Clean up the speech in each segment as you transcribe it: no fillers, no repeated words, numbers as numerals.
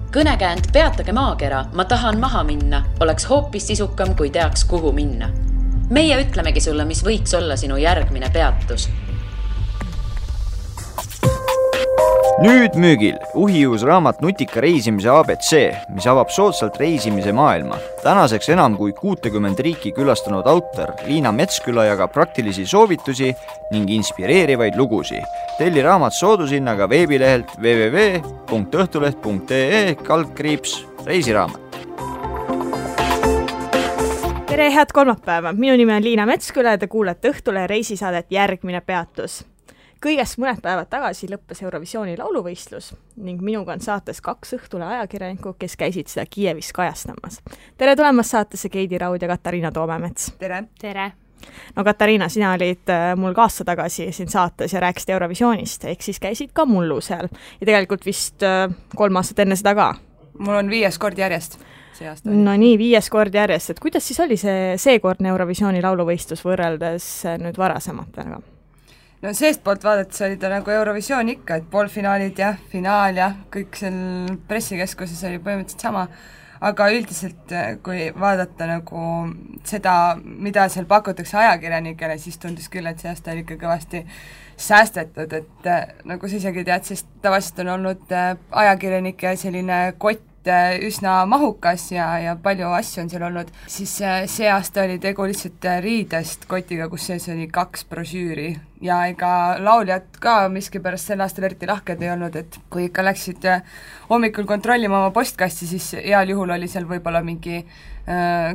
Kõnekäänd peatage maakera, ma tahan maha minna, oleks hoopis sisukam, kui teaks, kuhu minna. Meie ütlemegi sulle, mis võiks olla sinu järgmine peatus. Nüüd müügil uhiuus raamat Nutika reisimise ABC, mis avab soodsalt reisimise maailma. Tänaseks enam kui 60 riiki külastanud autor Liina Metsküla jagab praktilisi soovitusi ning inspireerivaid lugusi. Telli raamat soodushinnaga veebilehelt www.õhtuleht.ee/reisiraamat. Tere, head kolmapäeva! Minu nimi on Liina Metsküla ja te kuulete Õhtulehe reisisaadet Järgmine peatus. Kõigest mõned päevad tagasi lõppes Eurovisiooni lauluvõistlus ning minuga on saates 2 Õhtulehe ajakirjanikku, kes käisid seda Kiievis kajastamas. Tere tulemast saatesse Keidi Raud ja Katariina Toomemets. Tere! Tere! No Katariina, sina olid mul ka aasta tagasi siin saates ja rääkisid Eurovisioonist, ehk siis käisid ka mullu seal. Ja tegelikult vist 3 aastat enne seda ka. Mul on 5. kord järjest see aasta. No nii, 5. kord järjest. Et kuidas siis oli seekordne Eurovisiooni lauluvõistlus võrreldes nüüd varasematega? No seest poolt vaadates oli ta nagu Eurovisioon ikka, et poolfinaalid ja finaal ja kõik seal pressikeskuses oli põhimõtteliselt sama, aga üldiselt kui vaadata nagu seda, mida seal pakutakse ajakirjanikele, siis tundus küll, et see aasta oli ikka kõvasti säästetud, et nagu sa isegi tead, sest tavaliselt on olnud ajakirjanike selline kott üsna mahukas ja palju asju on seal olnud, siis see aasta oli tegu lihtsalt riidest kotiga, kus sees oli 2 brošüüri ja ega lauljad ka miskipärast sel aastal eriti lahked ei olnud, et kui ikka läksid hommikul kontrollima oma postkasti, siis heal juhul oli seal võib-olla mingi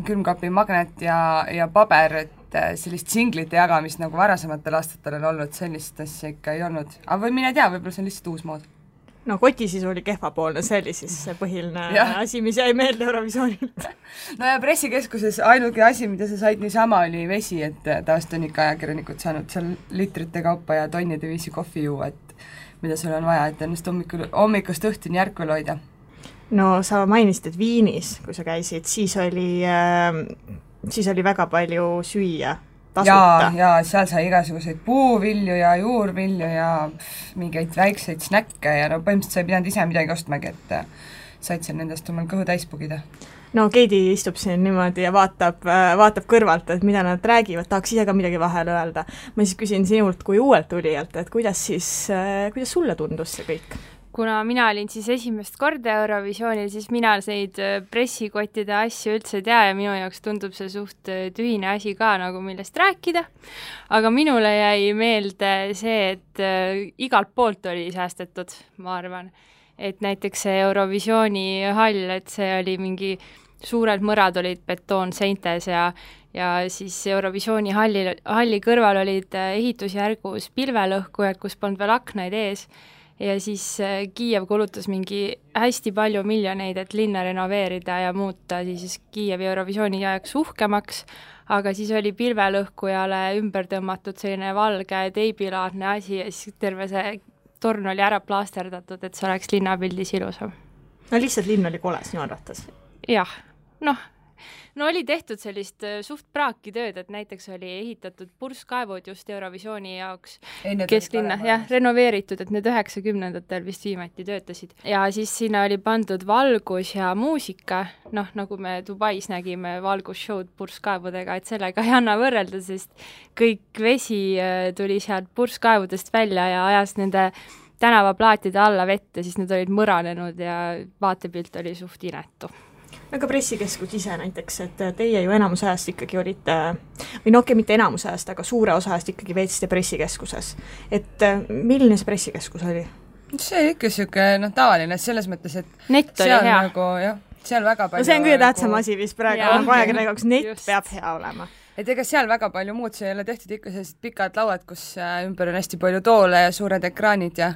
külmkapi magnet ja paber, et sellist singlite jagamist nagu varasematel aastatel on olnud, sellist asja ikka ei olnud. Aga või mine tea, võib-olla see on lihtsalt uus mood. No kotisisu oli kehvapoolne, see oli siis see põhiline asi, mis jäi meelde Eurovisioonilt. No ja pressikeskuses ainuke asi, mida sa said niisama, oli vesi, et tavaliselt on ikka ajakirjanikud saanud seal litrite kaupa ja tonnide viisi kohvi juua, et mida sul on vaja, et ennast hommikust õhtuni järkvel hoida. No sa mainisid, et Viinis, kui sa käisid, siis oli väga palju süüa. Ja seal sai igasuguseid puuvilju ja juurvilju ja mingeid väikseid snäkke ja no põhimõtteliselt sa ei pidanud ise midagi ostmagi, et said seal nendest omal kõhu täis pugida. No Keidi istub siin niimoodi ja vaatab kõrvalt, et mida nad räägivad, tahaks ise ka midagi vahel öelda. Ma siis küsin sinult kui uuelt tulijalt, et kuidas sulle tundus see kõik? Kuna mina olin siis esimest korda Eurovisioonil, siis mina neid pressikottide asju üldse tea ja minu jaoks tundub see suht tühine asi ka nagu millest rääkida. Aga minule jäi meelde see, et igalt poolt oli säästetud, ma arvan. Et näiteks see Eurovisiooni hall, et see oli mingi suured mõrad olid betoonseintes ja siis Eurovisiooni halli kõrval olid ehitusjärgus pilvelõhkujad, kus polnud veel aknaid ees. Ja siis Kiiev kulutas mingi hästi palju miljoneid, et linna renoveerida ja muuta siis Kiievi Eurovisiooni ajaks uhkemaks, aga siis oli pilvelõhkujale ümber tõmmatud selline valge teibilaadne asi ja siis terve see torn oli ära plaasterdatud, et see oleks linnapildis ilusam. No lihtsalt linn oli kole sinu arvates? Jah, no oli tehtud sellist suht praaki tööd, et näiteks oli ehitatud purskkaevud just Eurovisiooni jaoks kesklinna, renoveeritud, et need 90-ndatel vist viimati töötasid. Ja siis sinna oli pandud valgus ja muusika, nagu me Dubais nägime valgusshowd purskkaevudega, et sellega ei anna võrrelda, sest kõik vesi tuli sealt purskkaevudest välja ja ajas nende tänavaplaatide alla vette, siis need olid mõranenud ja vaatepilt oli suht inetu. Aga pressikeskus ise näiteks, et teie ju enamus ajast ikkagi olite, või mitte enamus ajast, aga suure osa ajast ikkagi veetsite pressikeskuses. Et milline see pressikeskus oli? See oli ikka siuke tavaline selles mõttes, et net oli hea. Nagu, seal väga palju... No see on kõige tähtsam asi vist praegu, nagu ajakirjanikuks net just. Peab hea olema. Et ega seal väga palju muud, see ei ole tehtud ikka sellised pikad lauad, kus ümber on hästi palju toole ja suured ekraanid ja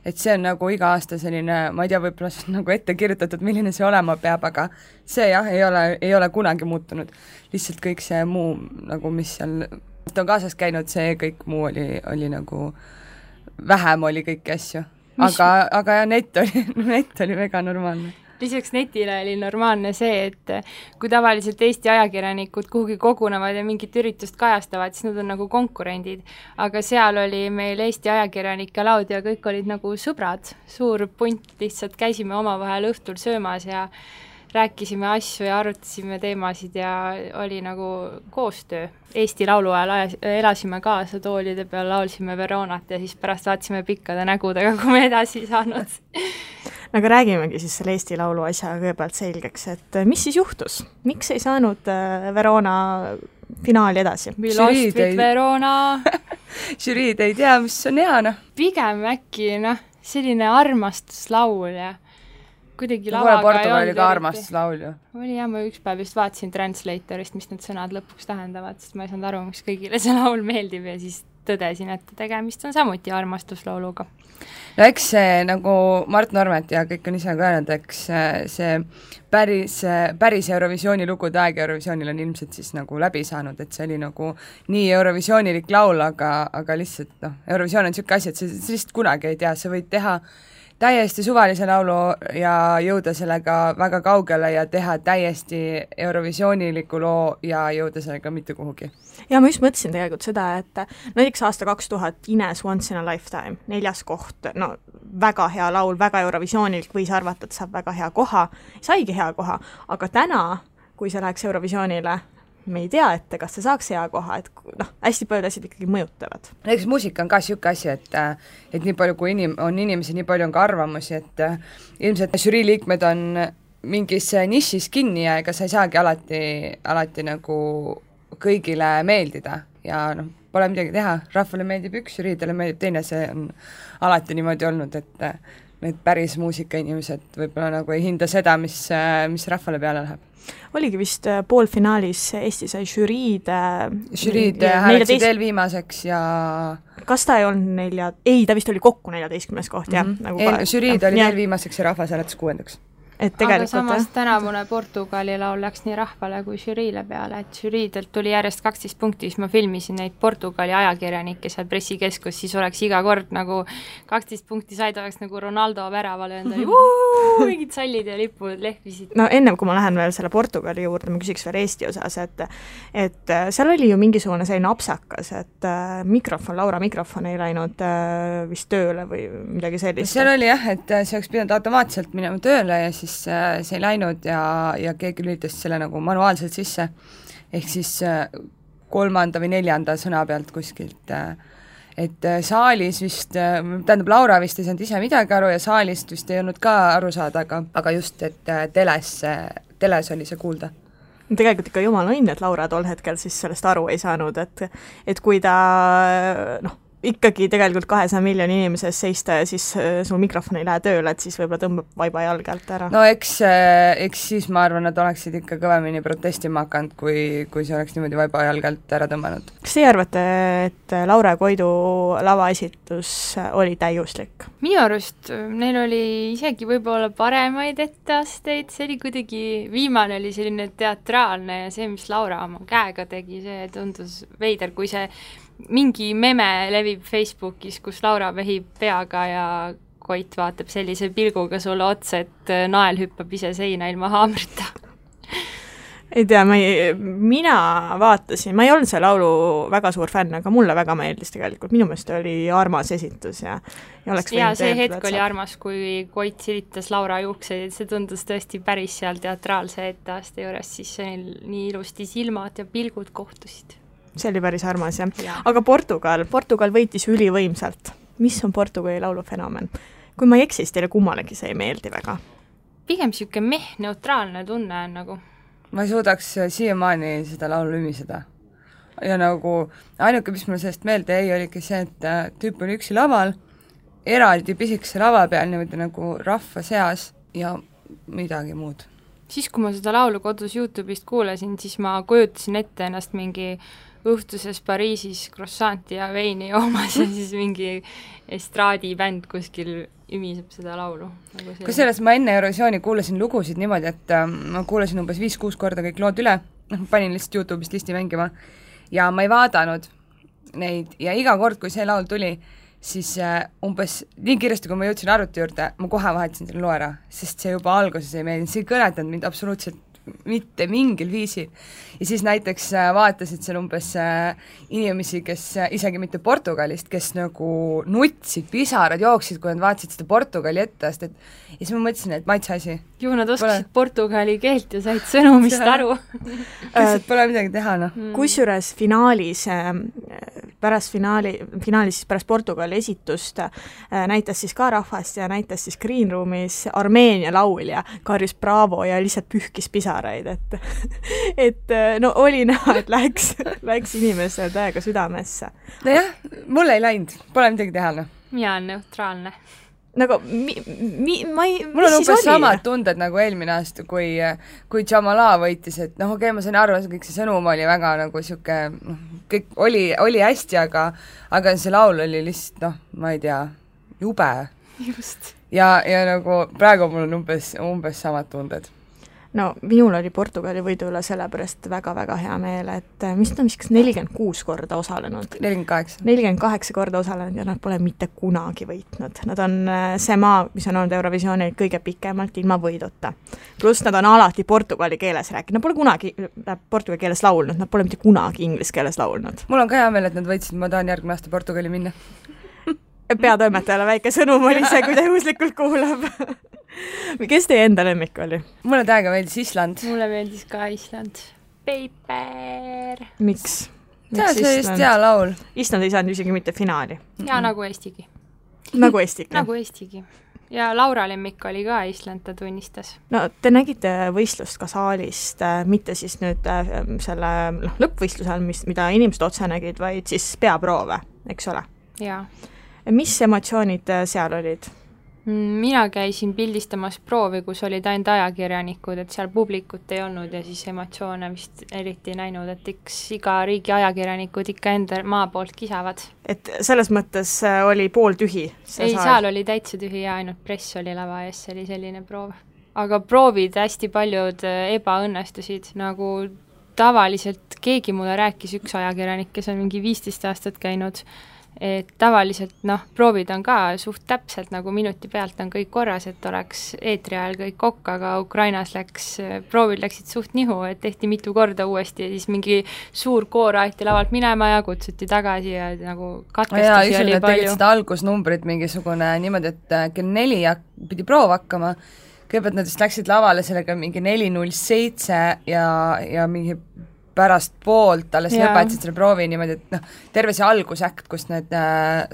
et see on nagu iga aasta selline, ma ei tea, võib-olla see on nagu ette kirjutatud, milline see olema peab, aga see ei ole kunagi muutunud. Lihtsalt kõik see muu, nagu mis seal on kaasas käinud, see kõik muu oli nagu, vähem oli kõiki asju. Aga net oli väga normaalne. lisaks netile oli normaalne see, et kui tavaliselt Eesti ajakirjanikud kuhugi kogunevad ja mingit üritust kajastavad, siis nad on nagu konkurendid. Aga seal oli meil Eesti ajakirjanike laud ja kõik olid nagu sõbrad, suur punt, lihtsalt käisime omavahel õhtul söömas ja rääkisime asju ja arutasime teemasid ja oli nagu koostöö. Eesti laulu ajal elasime kaasa toolide peal, laulsime Veronat ja siis pärast vaatasime pikkade nägudega, kui me edasi saanud. Aga räägimegi siis selle Eesti laulu asja kõigepealt selgeks, et mis siis juhtus? Miks ei saanud Verona finaali edasi? We lost with Verona. Žüriid ei tea, mis on hea, noh. Pigem äkki, selline armastuslaul ja kuidagi lavaga ei olnud. Portugali ka armastuslaul ju. Oli jah, ma üks päev just vaatasin Translatorist, mis need sõnad lõpuks tähendavad, sest ma ei saanud aru, miks kõigile see laul meeldib ja siis tõdesin, et tegemist on samuti armastuslauluga. No eks see nagu Mart Normet ja kõik on ise ka öelnud, eks see päris Eurovisiooni lugude aeg Eurovisioonil on ilmselt siis nagu läbi saanud, et see oli nagu nii Eurovisioonilik laul, aga lihtsalt Eurovisioon on niisugune asi, et see lihtsalt kunagi ei tea, sa võid teha täiesti suvalise laulu ja jõuda sellega väga kaugele ja teha täiesti Eurovisiooniliku loo ja jõuda sellega mitte kuhugi. Ja ma just mõtlesin tegelikult seda, et näiteks aasta 2000 Ines Once in a Lifetime, 4. koht, väga hea laul, väga Eurovisioonilik, võis arvata, et saab väga hea koha, saigi hea koha, aga täna, kui see läheks Eurovisioonile, me ei tea ette, kas see saaks hea koha, et hästi paljud asjad ikkagi mõjutavad. Näiteks muusika on ka niisugune asi, et nii palju kui on inimesi, nii palju on ka arvamusi, et ilmselt žürii liikmed on mingis nišis kinni ja ega sa ei saagi alati nagu kõigile meeldida ja pole midagi teha, rahvale meeldib üks, žüriidele meeldib teine, see on alati niimoodi olnud, et need päris muusikainimesed võib-olla nagu ei hinda seda, mis rahvale peale läheb. Oligi vist poolfinaalis Eesti sai žüriid hääleksid eelviimaseks ja kas ta ei olnud ta vist oli kokku 14. koht, jah? Žüriid oli eelviimaseks ja rahvas hääletas 6. Aga samas tänavune Portugali laul läks nii rahvale kui žüriile peale, et žüriidelt tuli järjest 12 punkti, siis ma filmisin neid Portugali ajakirjanikke seal pressikeskus, siis oleks iga kord nagu 12 punkti said, oleks nagu Ronaldo väravale endale mingid sallid ja lipud lehvisid. No ennem kui ma lähen veel selle Portugali juurde, ma küsiks veel Eesti osas, et seal oli ju mingisugune selline apsakas, et Laura mikrofon ei läinud vist tööle või midagi sellist. Seal oli jah, et see oleks pidanud automaatselt minema tööle ja siis see ei läinud ja keegi lülitas selle nagu manuaalselt sisse, ehk siis 3. või 4. sõna pealt kuskilt, et saalis vist, tähendab Laura vist ei saanud ise midagi aru ja saalist vist ei olnud ka aru saada, aga just, et teles oli see kuulda. Tegelikult ikka jumala õnn, et Laura tol hetkel siis sellest aru ei saanud, et kui ta ikkagi tegelikult 200 miljoni inimeses seista ja siis sul mikrofon ei lähe tööle, et siis võib-olla tõmbab vaiba jalge alt ära. No eks siis ma arvan, nad oleksid ikka kõvemini protestima hakanud, kui see oleks niimoodi vaiba jalge alt ära tõmmanud. Kas teie arvate, et Laura ja Koidu lavaesitus oli täiuslik? Minu arust neil oli isegi võib-olla paremaid etteasteid, see oli kuidagi, viimane oli selline teatraalne ja see, mis Laura oma käega tegi, see tundus veider, kui see mingi meme levib Facebookis, kus Laura vehib peaga ja Koit vaatab sellise pilguga sulle otsa, et nael hüppab ise seina ilma haamrita. Ei tea, mina vaatasin, ma ei olnud see laulu väga suur fänn, aga mulle väga meeldis tegelikult, minu meelest oli armas esitus ja see hetk oli armas, kui Koit silitas Laura juukseid, see tundus tõesti päris seal teatraalse etteaste juures, siis nii ilusti silmad ja pilgud kohtusid. See oli päris armas, jah. Aga Portugal võitis ülivõimsalt. Mis on Portugali laulu fenomen? Kui ma ei eksis, teile kummalegi see ei meeldi väga? Pigem siuke neutraalne tunne on nagu. Ma ei suudaks siiamaani seda laulu ümiseda. Ja nagu ainuke, mis mulle sellest meelde jäi, oligi see, et tüüp oli üksi laval, eraldi pisikese lava peal niimoodi nagu rahva seas ja midagi muud. Siis, kui ma seda laulu kodus YouTube'ist kuulasin, siis ma kujutasin ette ennast mingi õhtuses Pariisis krossanti ja veini joomas ja siis mingi estraadibänd kuskil ümiseb seda laulu. Kusjuures ma enne Eurovisiooni kuulasin lugusid niimoodi, et ma kuulasin umbes 5-6 korda kõik lood üle, panin lihtsalt YouTube'ist listi mängima ja ma ei vaadanud neid ja iga kord, kui see laul tuli, siis umbes nii kiiresti, kui ma jõudsin arvuti juurde, ma kohe vahetasin selle loo ära, sest see juba alguses ei meeldinud, see ei kõnetanud mind absoluutselt mitte mingil viisil. Ja siis näiteks vaatasid seal umbes inimesi, kes isegi mitte Portugalist, kes nagu nutsid, pisarad jooksid, kui nad vaatasid seda Portugali ettest, et ja siis ma mõtlesin, et maitse asi. Ju nad oskasid portugali keelt ja said sõnumist aru. Lihtsalt pole midagi teha, noh. Kusjuures finaalis, finaalis pärast Portugali esitust näitas siis ka rahvast ja näitas siis Green Roomis Armeenia laulja, karjus Bravo ja lihtsalt pühkis pisaraid, et no oli näha, et läks inimesele täiega südamesse. Nojah, mulle ei läinud, pole midagi teha, noh. Mina on neutraalne. Nagu mul on umbes samad tunded nagu eelmine aasta, kui Jamala võitis, et noh, okei, ma sain aru, kõik see sõnum oli väga nagu siuke, kõik oli hästi, aga see laul oli lihtsalt, noh, ma ei tea, jube. Just. Ja nagu praegu mul on umbes samad tunded. No minul oli Portugali võidu üle sellepärast väga-väga hea meel, et mis ta vist 46 korda osalenud. 48 korda osalenud ja nad pole mitte kunagi võitnud. Nad on see maa, mis on olnud Eurovisioonil kõige pikemalt ilma võiduta. Pluss nad on alati portugali keeles rääkinud. Nad pole kunagi portugali keeles laulnud, nad pole mitte kunagi inglise keeles laulnud. Mul on ka hea meel, et nad võitsid, ma tahan järgmine aasta Portugali minna. Peatoimetajale väike sõnum oli see, kui ta juhuslikult kuulab. Kes teie enda lemmik oli? Mulle täiega meeldis Island. Mulle meeldis ka Island. Paper. Miks? See oli just hea laul. Island ei saanud isegi mitte finaali. Ja nagu Eestigi. Nagu Eestigi. Nagu Eestigi. Ja Laura lemmik oli ka Island, ta tunnistas. No te nägite võistlust ka saalist, mitte siis nüüd selle lõppvõistlusel, mida inimesed otse nägid, vaid siis peaproove, eks ole? Jaa. Mis emotsioonid seal olid? Mina käisin pildistamas proovi, kus olid ainult ajakirjanikud, et seal publikut ei olnud ja siis emotsioone vist eriti näinud, et iga riigi ajakirjanikud ikka enda maa poolt kisavad. Et selles mõttes oli pool tühi? Ei, seal oli täitsa tühi ja ainult press oli lava ees, see oli selline proov. Aga proovid hästi paljud ebaõnnestusid, nagu tavaliselt keegi mulle rääkis üks ajakirjanik, kes on mingi 15 aastat käinud, et tavaliselt, proovid on ka suht täpselt, nagu minuti pealt on kõik korras, et oleks eetri ajal kõik kokk, aga Ukrainas proovid läksid suht nihu, et tehti mitu korda uuesti ja siis mingi suur koor aeti lavalt minema ja kutsuti tagasi ja nagu katkestusi oli palju. Tegid seda algusnumbrit mingisugune niimoodi, et kell 4 pidi proov hakkama, kõigepealt nad vist läksid lavale sellega mingi 4:07 ja mingi pärast poolt alles lõpetasid selle proovi niimoodi, et terve see algusäkt, kus need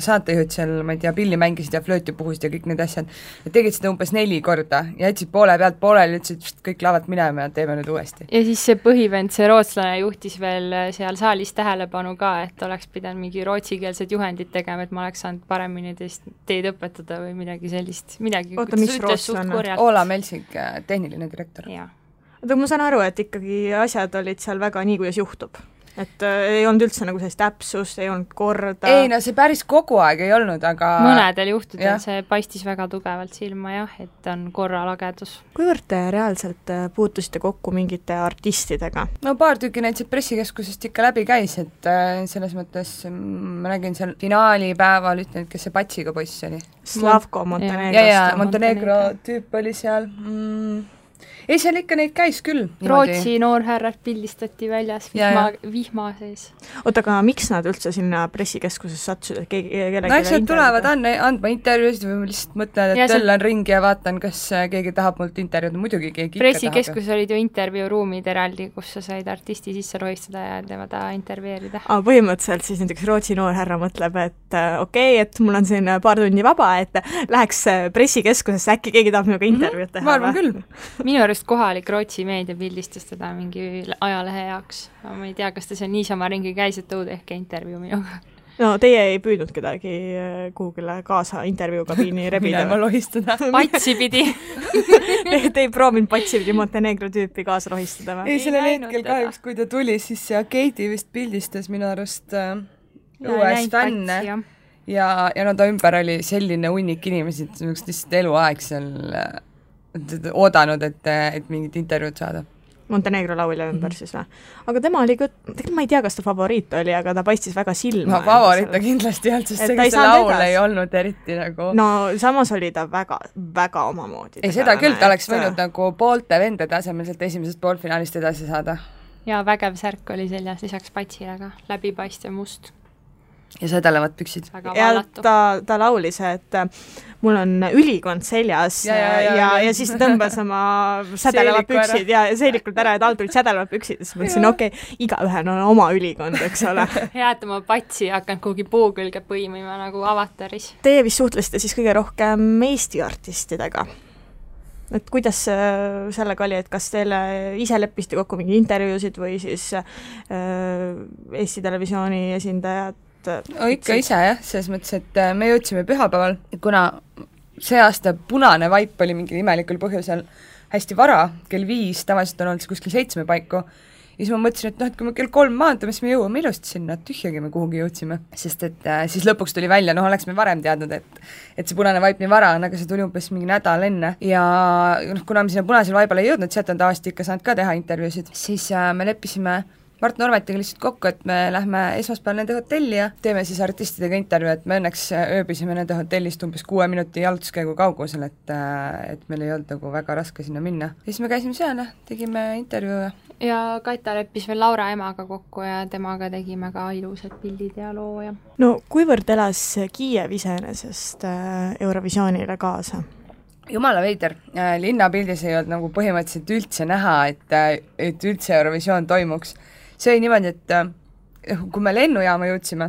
saatejuhid seal, ma ei tea, pilli mängisid ja flööti puhusid ja kõik need asjad, nad tegid seda umbes 4 korda ja jätsid poole pealt pooleli, ütlesid kõik lavalt minema ja teeme nüüd uuesti. Ja siis see põhivend, see rootslane juhtis veel seal saalis tähelepanu ka, et oleks pidanud mingi rootsikeelsed juhendid tegema, et ma oleks saanud paremini teid õpetada või midagi sellist. Oota, mis rootslane? Oola Melsik, tehniline direktor. Jaa. Aga ma saan aru, et ikkagi asjad olid seal väga nii, kuidas juhtub. Et ei olnud üldse nagu sellist täpsust, ei olnud korda. Ei, no see päris kogu aeg ei olnud, aga mõnedel juhtudel see paistis väga tugevalt silma, jah, et on korralagedus. Kuivõrd te reaalselt puutusite kokku mingite artistidega? No paar tükki näiteks pressikeskusest ikka läbi käis, et selles mõttes ma nägin seal finaalipäeval, ütlen, kes see Patsiga poiss oli. Slavko Montenegrost. Ja, Montenegro tüüp oli seal. Ei, seal ikka neid käis küll. Rootsi noorhärrad pildistati väljas vihma sees. Oota, aga miks nad üldse sinna pressikeskuses satsusid? No eks nad tulevad andma intervjuusid või lihtsalt mõtlen, et töllan ringi ja vaatan, kas keegi tahab mult intervjuud. Muidugi keegi pressikeskus olid ju intervjuuruumid eraldi, kus sa said artisti sisse rohistada ja tema intervjueerida. Põhimõtteliselt siis näiteks Rootsi noorhärra mõtleb, et okei, et mul on siin paar tundi vaba, et läheks pressikeskusesse, äkki keegi tahab minuga intervjuud teha. Ma arvan küll. Minu arust kohalik Rootsi meedia pildistas teda mingi ajalehe jaoks. Ma ei tea, kas ta seal niisama ringi käis, et tõud ehk intervjuu minuga. No teie ei püüdnud kedagi kuhugile kaasa intervjuukabiini rebida? Minema lohistada. Patsi pidi. Te ei proovinud Patsi pidi Montenegro tüüpi kaasa rohistada või? Ei, sellel hetkel kahjuks, kui ta tuli, siis Keiti vist pildistas minu arust uues fänne. Ja no ta ümber oli selline hunnik inimesi, et lihtsalt eluaeg seal oodanud, et mingit intervjuud saada. Montenegro laulja ümber siis või? Aga tema oli ka, tegelikult ma ei tea, kas ta favoriit oli, aga ta paistis väga silma. No favoriit ta kindlasti ei olnud, sest see laul ei olnud eriti nagu... No samas oli ta väga, väga omamoodi. Ei, seda küll, ta oleks võinud nagu poolte vendade asemel sealt esimesest poolfinaalist edasi saada. Ja vägev särk oli seljas lisaks patsile ka, läbipaistev must. Ja sädelevad püksid. Ja ta laulis, et mul on ülikond seljas ja siis ta tõmbas oma sädelevad püksid ja seelikult ära, et all tulid sädelevad püksid ja siis mõtlesin, igaühel on oma ülikond, eks ole. Hea, et oma patsi hakanud kuhugi puu külge põimima nagu Avataris. Teie vist suhtlesite siis kõige rohkem Eesti artistidega. Et kuidas sellega oli, et kas teile ise leppisite kokku mingi intervjuusid või siis Eesti Televisiooni esindajad? Ikka ise jah, selles mõttes, et me jõudsime pühapäeval, kuna see aasta punane vaip oli mingi imelikul põhjusel hästi vara, kell 5, tavaliselt on olnud kuskil 7 paiku, ja siis ma mõtlesin, et kui me kell 3 maandume, siis me jõuame ilusti sinna, tühjagi me kuhugi jõudsime, sest et siis lõpuks tuli välja, oleks me varem teadnud, et see punane vaip nii vara on, aga see tuli umbes mingi nädal enne ja kuna me sinna punasel vaibale ei jõudnud, sealt on tavaliselt ikka saanud ka teha intervjuusid, siis me leppisime Mart Normetiga lihtsalt kokku, et me lähme esmaspäeval nende hotelli ja teeme siis artistidega intervjuu, et me õnneks ööbisime nende hotellist umbes 6 minuti jalutuskäigu kaugusel, et meil ei olnud nagu väga raske sinna minna. Ja siis me käisime seal ja tegime intervjuu. Ja Kaita leppis veel Laura emaga kokku ja temaga tegime ka ilusad pildid ja loo ja... No kuivõrd elas Kiiev iseenesest Eurovisioonile kaasa? Jumala veider, linnapildis ei olnud nagu põhimõtteliselt üldse näha, et üldse Eurovisioon toimuks. See oli niimoodi, et kui me lennujaama jõudsime,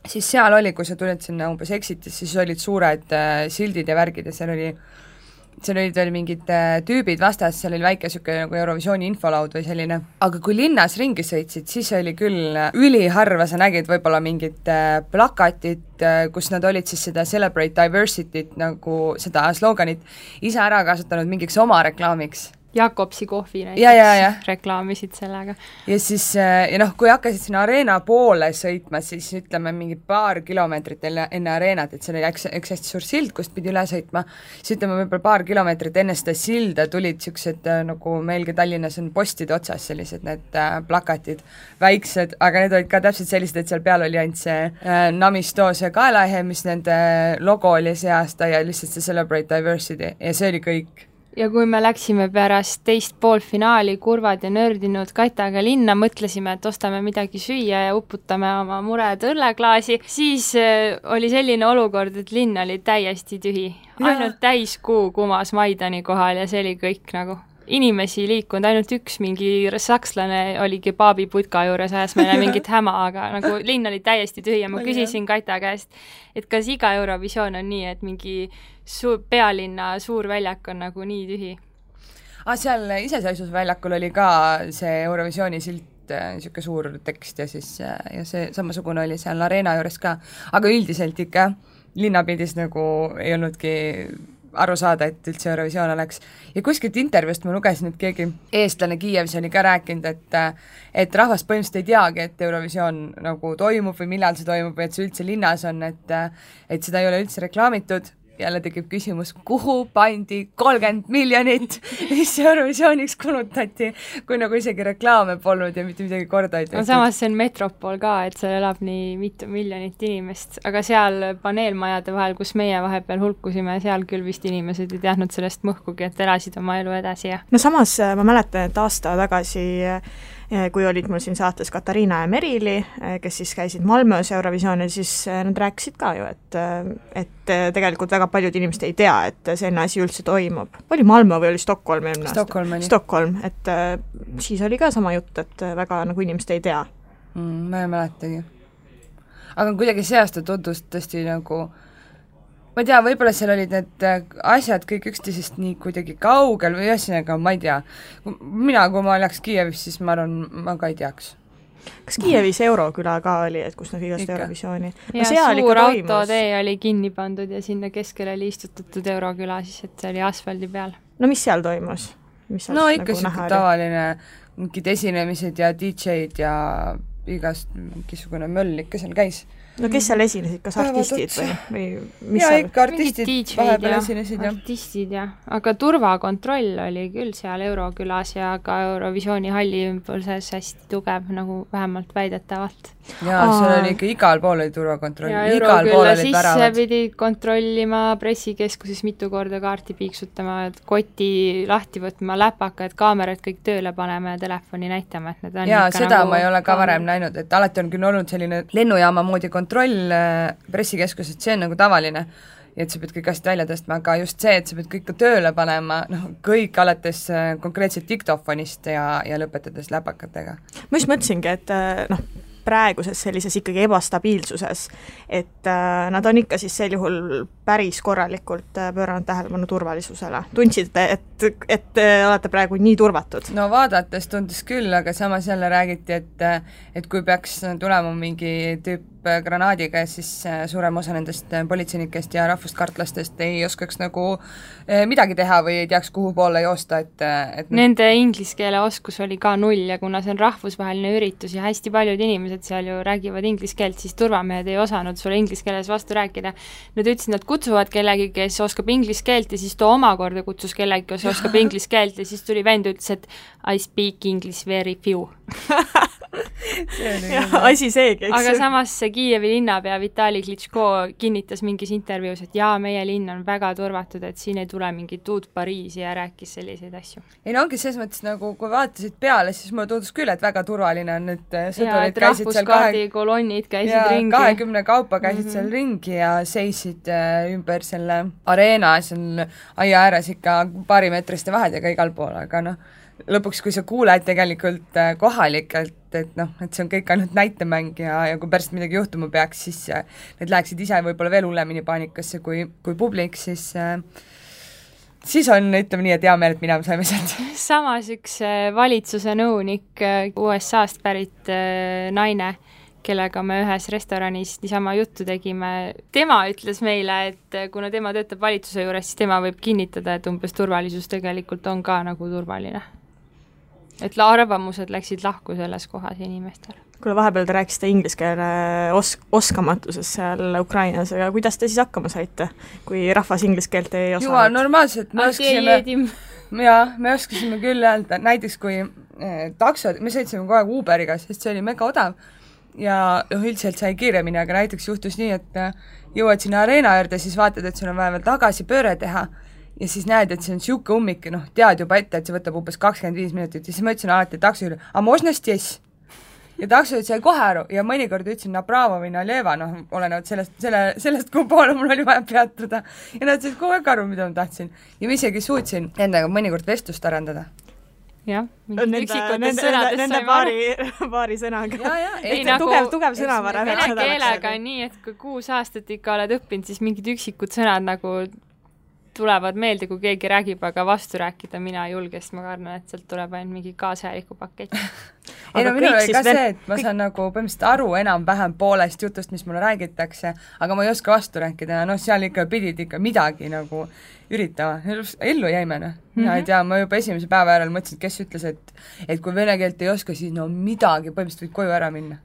siis seal oli, kui sa tulid sinna umbes exitis, siis olid suured sildid ja värgid ja seal olid veel mingid tüübid vastas, seal oli väike siuke nagu Eurovisiooni infolaud või selline. Aga kui linnas ringi sõitsid, siis oli küll üliharva, sa nägid võib-olla mingid plakatid, kus nad olid siis seda Celebrate Diversity't nagu seda sloganit ise ära kasutanud mingiks oma reklaamiks. Jakobsi kohvi näiteks reklaamisid sellega. Ja siis, kui hakkasid sinna areena poole sõitma, siis ütleme mingi paar kilomeetrit enne areenat, et seal oli üks hästi suur sild, kust pidi üle sõitma, siis ütleme võib-olla paar kilomeetrit enne seda silda tulid siuksed, nagu meilgi Tallinnas on postide otsas sellised need plakatid, väiksed, aga need olid ka täpselt sellised, et seal peal oli ainult see Namistoos ja kaelahe, mis nende logo oli see aasta ja lihtsalt see Celebrate Diversity ja see oli kõik. Ja kui me läksime pärast teist poolfinaali kurvad ja nördinud Kaitaga linna, mõtlesime, et ostame midagi süüa ja uputame oma mured õlleklaasi, siis oli selline olukord, et linn oli täiesti tühi. Ainult täiskuu kumas Maidani kohal ja see oli kõik nagu. Inimesi liikunud, ainult üks mingi sakslane oli kebaabiputka juures, ajas meile mingit häma, aga nagu linn oli täiesti tühi ja ma küsisin Kaita käest, et kas iga Eurovisioon on nii, et mingi pealinna suur väljak on nagu nii tühi? Seal iseseisvusväljakul oli ka see Eurovisiooni silt, niisugune suur tekst ja siis ja see samasugune oli seal areena juures ka, aga üldiselt ikka linnapildis nagu ei olnudki aru saada, et üldse Eurovisioon oleks. Ja kuskilt intervjuust ma lugesin, et keegi eestlane Kiievis oli ka rääkinud, et rahvas põhimõtteliselt ei teagi, et Eurovisioon nagu toimub või millal see toimub või et see üldse linnas on, et seda ei ole üldse reklaamitud. Jälle tekib küsimus, kuhu pandi 30 miljonit, mis Eurovisiooniks kulutati, kui nagu isegi reklaame polnud ja mitte midagi korda ei tehtud. Samas see on metropol ka, et seal elab nii mitu miljonit inimest, aga seal paneelmajade vahel, kus meie vahepeal hulkusime, seal küll vist inimesed ei teadnud sellest mõhkugi, et elasid oma elu edasi. Ja. No samas ma mäletan, et aasta tagasi kui olid mul siin saates Katariina ja Merili, kes siis käisid Malmöös Eurovisioonil, siis nad rääkisid ka ju, et tegelikult väga paljud inimesed ei tea, et selline asi üldse toimub. Oli Malmö või oli Stockholm eelmine aasta? Stockholm, et siis oli ka sama jutt, et väga nagu inimesed ei tea. Ma ei mäletagi. Aga kuidagi see aasta tundus tõesti nagu ma ei tea, võib-olla seal olid need asjad kõik üksteisest nii kuidagi kaugel või ühesõnaga, ma ei tea. Kui ma oleks Kiievis, siis ma arvan, ma ka ei teaks. Kas Kiievis Euroküla ka oli, et kus nad igast Eurovisiooni? Ja suur autotee oli kinni pandud ja sinna keskele oli istutatud Euroküla, siis et see oli asfaldi peal. No mis seal toimus? No ikka nagu tavaline mingid esinemised ja DJ-d ja igast mingisugune möll ikka seal käis. no kes seal esinesid, kas artistid või mis ja seal? ikka artistid vahepeal esinesid, jah. Artistid, jah. Aga turvakontroll oli küll seal Eurokülas ja ka Eurovisiooni halli ümbuses hästi tugev, nagu vähemalt väidetavalt. Jaa, seal oli ikka igal pool oli turvakontroll. Ja Eurokülla sisse pidi kontrollima, pressikeskuses mitu korda kaarti piiksutama, koti lahti võtma, läpakad, kaamerad kõik tööle panema ja telefoni näitama, et need on jaa, ikka seda nagu ma ei ole ka varem näinud, et alati on küll olnud selline lennujaama moodi kontroll pressikeskuses, see on nagu tavaline, et sa pead kõik asjad välja tõstma, aga just see, et sa pead kõik tööle panema, kõik alates konkreetselt diktofonist ja lõpetades läpakatega. Ma just mõtlesingi, et praeguses sellises ikkagi ebastabiilsuses, et nad on ikka siis sel juhul päris korralikult pööranud tähelepanu turvalisusele. Tundsite, et olete praegu nii turvatud? No vaadates tundus küll, aga samas jälle räägiti, et kui peaks tulema mingi tüüp granaadiga, siis suurem osa nendest politseinikest ja rahvuskartlastest ei oskaks nagu midagi teha või ei teaks, kuhu poole joosta, et nende inglise keele oskus oli ka 0 ja kuna see on rahvusvaheline üritus ja hästi paljud inimesed seal ju räägivad inglise keelt, siis turvamehed ei osanud sulle inglise keeles vastu rääkida. Nad ütlesid, nad kutsuvad kellegi, kes oskab inglise keelt ja siis too omakorda kutsus kellegi, kes oskab inglise keelt ja siis tuli vend ütles, et I speak English very few. asi seegi, eks. Aga samas see Kiievi linnapea Vitali Klitschko kinnitas mingis intervjuus, et jaa, meie linn on väga turvatud, et siin ei tule mingit uut Pariisi ja rääkis selliseid asju. Ei no ongi selles mõttes nagu, kui vaatasid peale, siis mulle tundus küll, et väga turvaline on, et sõdurid käisid seal kolonnid käisid ringi. 20 kaupa käisid seal ringi ja seisid ümber selle areena seal aia ääres ikka paarimeetriste vahedega igal pool, aga lõpuks, kui sa kuuled tegelikult kohalikelt, et see on kõik ainult näitemäng ja kui pärast midagi juhtuma peaks, siis need läheksid ise võib-olla veel hullemini paanikasse kui publik, siis on, ütleme nii, et hea meel, et mina saime sealt. Samas üks valitsuse nõunik USA-st pärit naine, kellega me ühes restoranis niisama juttu tegime, tema ütles meile, et kuna tema töötab valitsuse juures, siis tema võib kinnitada, et umbes turvalisus tegelikult on ka nagu turvaline. Et arvamused läksid lahku selles kohas inimestel. Kuule, vahepeal te rääkisite inglise keele oskamatuses seal Ukrainas, aga kuidas te siis hakkama saite, kui rahvas inglise keelt ei osanud? Juba normaalselt, me oskasime küll öelda, näiteks kui taksod, me sõitsime kogu aeg Uberiga, sest see oli mega odav ja üldiselt sai kiiremini, aga näiteks juhtus nii, et jõuad sinna areena juurde, siis vaatad, et sul on vaja veel tagasi pööre teha ja siis näed, et see on siuke ummik, tead juba ette, et see võtab umbes 25 minutit ja siis ma ütlesin alati takso üle, aga možna stes? Ja taksod sai kohe aru ja mõnikord ütlesin napravo või naljeva, olenevalt sellest, kuhu poole mul oli vaja peatuda ja nad said kogu aeg aru, mida ma tahtsin ja ma isegi suutsin endaga mõnikord vestlust arendada. Jah, nende paari sõnaga. Tugev sõnavara. Vene keelega on nii, et kui 6 aastat ikka oled õppinud, siis mingid üksikud sõnad nagu tulevad meelde, kui keegi räägib, aga vastu rääkida mina ei julge, sest ma karnan, et sealt tuleb ainult mingi kaasajaliku pakett. Minul oli ka see, et ma saan nagu põhimõtteliselt aru enam-vähem poolest jutust, mis mulle räägitakse, aga ma ei oska vastu rääkida ja seal ikka pidid ikka midagi nagu üritama. Ellu jäime, Mina ei tea, ma juba esimese päeva järel mõtlesin, kes ütles, et kui vene keelt ei oska, siis midagi, põhimõtteliselt võid koju ära minna.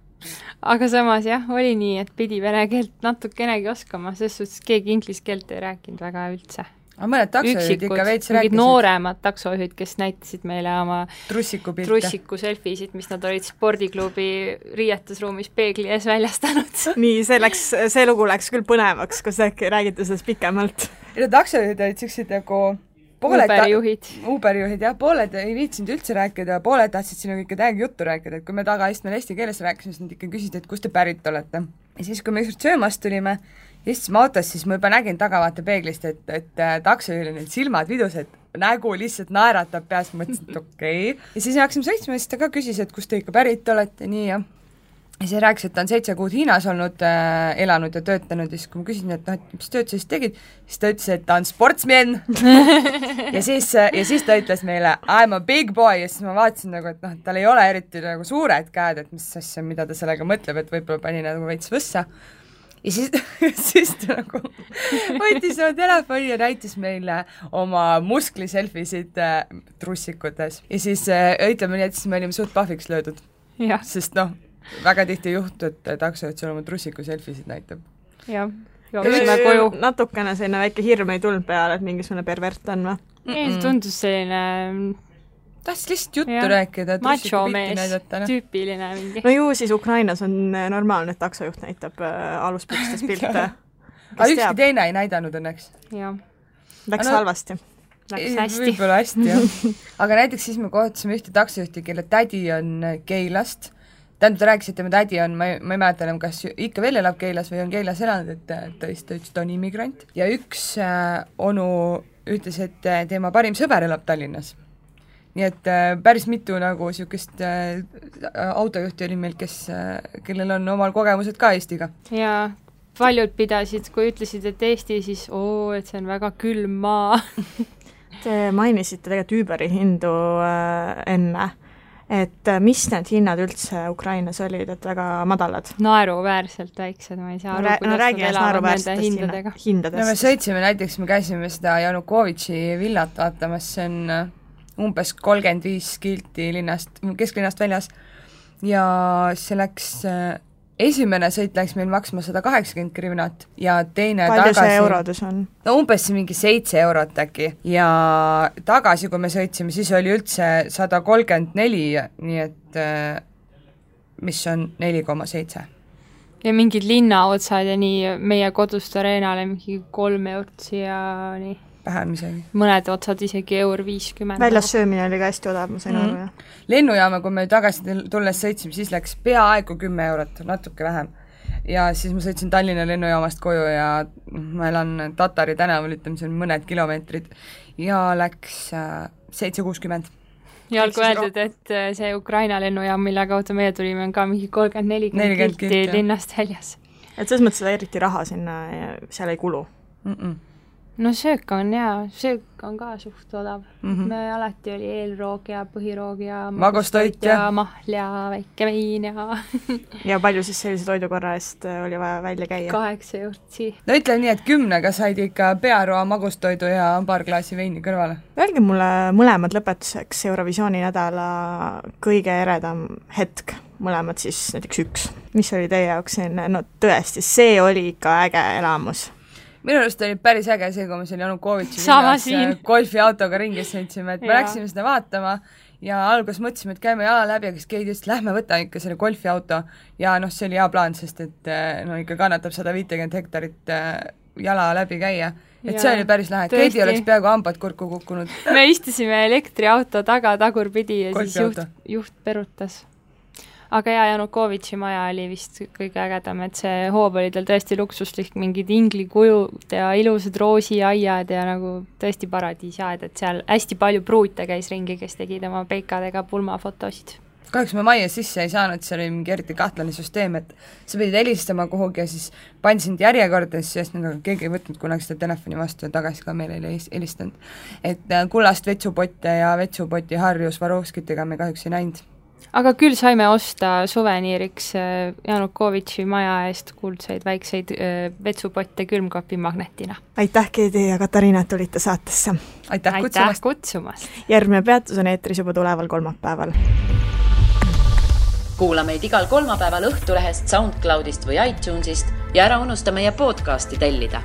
Aga samas jah, oli nii, et pidi vene keelt natukenegi oskama, sest suhtes keegi inglise keelt ei rääkinud väga üldse. Aga mõned taksojuhid ikka veits rääkisid. Nooremad taksojuhid, kes näitasid meile oma trussiku selfisid, mis nad olid spordiklubi riietusruumis peegli ees väljastanud. Nii, see lugu läks küll põnevaks, kus äkki räägite sellest pikemalt. Taksojuhid olid siuksed nagu Uberijuhid, jah, pooled ei viitsinud üldse rääkida, pooled tahtsid sinu kõike täiega juttu rääkida, et kui me tagaistmel eesti keeles rääkisime, siis nad ikka küsisid, et kust te pärit olete. Ja siis, kui me ükskord söömast tulime, istusime autos, siis ma juba nägin tagavaate peeglist, et taksojuhil on need silmad vidus, et nägu lihtsalt naeratab peas, mõtlesin, et okei. Ja siis hakkasime sõitsma ja siis ta ka küsis, et kust te ikka pärit olete, nii ja siis rääkis, et ta on 7 kuud Hiinas olnud, elanud ja töötanud ja siis kui ma küsisin, et mis tööd sa siis tegid, siis ta ütles, et ta on sportsmen ja siis ta ütles meile I'm a big boy ja siis ma vaatasin nagu, et tal ei ole eriti nagu suured käed, et mis asja, mida ta sellega mõtleb, et võib-olla pani nagu veits võssa ja siis ta nagu võttis oma telefoni ja näitas meile oma muskliselfisid trussikutes ja siis ütleme nii, et siis me olime suht pahviks löödud, sest väga tihti juhtu, et taksojuht sul oma trussiku selfisid näitab. jah, jooksime koju. Natukene selline väike hirm ei tulnud peale, et mingisugune pervert on või? Ei, see tundus selline tahtis lihtsalt juttu rääkida, trussiku pilti näidata. Tüüpiline mingi. No ju siis Ukrainas on normaalne, et taksojuht näitab aluspükstes pilte. Aga ükski teine ei näidanud õnneks. Läks halvasti. Läks hästi. Võib-olla hästi, jah. Aga näiteks siis me kohtusime ühte taksojuhti, kelle tädi on Keilast. Tähendab, ta rääkis, et tema tädi on, ma ei mäleta enam, kas ikka veel elab Keilas või on Keilas elanud, et ta ütles, ta on immigrant. Ja üks onu ütles, et tema parim sõber elab Tallinnas. Nii et päris mitu nagu niisugust autojuhti oli meil, kellel on omal kogemused ka Eestiga. Ja paljud pidasid, kui ütlesid, et Eesti, siis et see on väga külm maa. Te mainisite tegelikult Uberi hindu enne, et mis need hinnad üldse Ukrainas olid, et väga madalad? Naeruväärselt väiksed, ma ei saa aru, kuidas nad elavad nende hindadega. No me sõitsime näiteks, me käisime seda Janukovitši villat vaatamas, see on umbes 35 kilti kesklinnast väljas ja see läks... Esimene sõit läks meil maksma 180 grivnat ja teine palju tagasi... see eurodus on? No umbes mingi 7 eurot äkki ja tagasi, kui me sõitsime, siis oli üldse 134, nii et mis on 4,7. Ja mingid linnaotsad ja nii meie kodust areenale mingi 3 eurot siia nii. Vähem isegi. Mõned otsad isegi €50. Väljas söömine oli ka hästi odav, ma sain aru. Lennujaama, kui me tagasi tulles sõitsime, siis läks peaaegu 10 eurot, natuke vähem. Ja siis ma sõitsin Tallinna lennujaamast koju ja ma elan Tatari tänaval, ütleme, see on mõned kilomeetrid ja läks 7,60. Ja olgu öeldud, et see Ukraina lennujaam, mille kaudu meie tulime, on ka mingi 30-40 kilti linnast väljas. Et selles mõttes seda eriti raha sinna ja seal ei kulu? No söök on söök on ka suht odav. Me alati oli eelroog ja põhiroog ja magustoit ja mahl ja väike vein ja... Ja palju siis sellise toidukorra eest oli vaja välja käia? 8 eurtsi. No ütle nii, et 10 said ikka pearoa magustoidu ja paar klaasi veini kõrvale. Öelge mulle mõlemad lõpetuseks Eurovisiooni nädala kõige eredam hetk. Mõlemad siis näiteks üks. Mis oli teie jaoks selline, no tõesti, see oli ikka äge elamus. Minu arust oli päris äge see, kui me seal Janukovitši golfiautoga ringis sõitsime, et me läksime seda vaatama ja alguses mõtlesime, et käime jala läbi, aga siis keegi just lähme võta ikka selle golfiauto ja see oli hea plaan, sest et ikka kannatab 150 hektarit jala läbi käia. Et see oli päris lahe, et Keidi oleks peaaegu hambad kurku kukkunud. Me istusime elektriauto taga tagurpidi ja siis juht perutas. Aga Janukovitši maja oli vist kõige ägedam, et see hoob oli tal tõesti luksuslik, mingid inglikujud ja ilusad roosiaiad ja nagu tõesti paradiisiaed, et seal hästi palju pruute käis ringi, kes tegid oma peikadega pulmafotosid. Kahjuks me majja sisse ei saanud, see oli mingi eriti kahtlane süsteem, et sa pidid helistama kuhugi ja siis pandisid järjekordades, sest keegi ei võtnud kunagi seda telefoni vastu ja tagasi ka meile ei helistanud. Et kullast vetsupotte ja vetsupoti harju Svarovskitega me kahjuks ei näinud. Aga küll saime osta suveniiriks Janukovitši maja eest kuldseid väikseid vetsupotte külmkapi magnetina. Aitäh, Keidi ja Katariina, et tulite saatesse. Aitäh kutsumast. Järgmine peatus on eetris juba tuleval kolmapäeval. Kuula meid igal kolmapäeval Õhtulehest, SoundCloudist või iTunesist ja ära unusta meie podcasti tellida.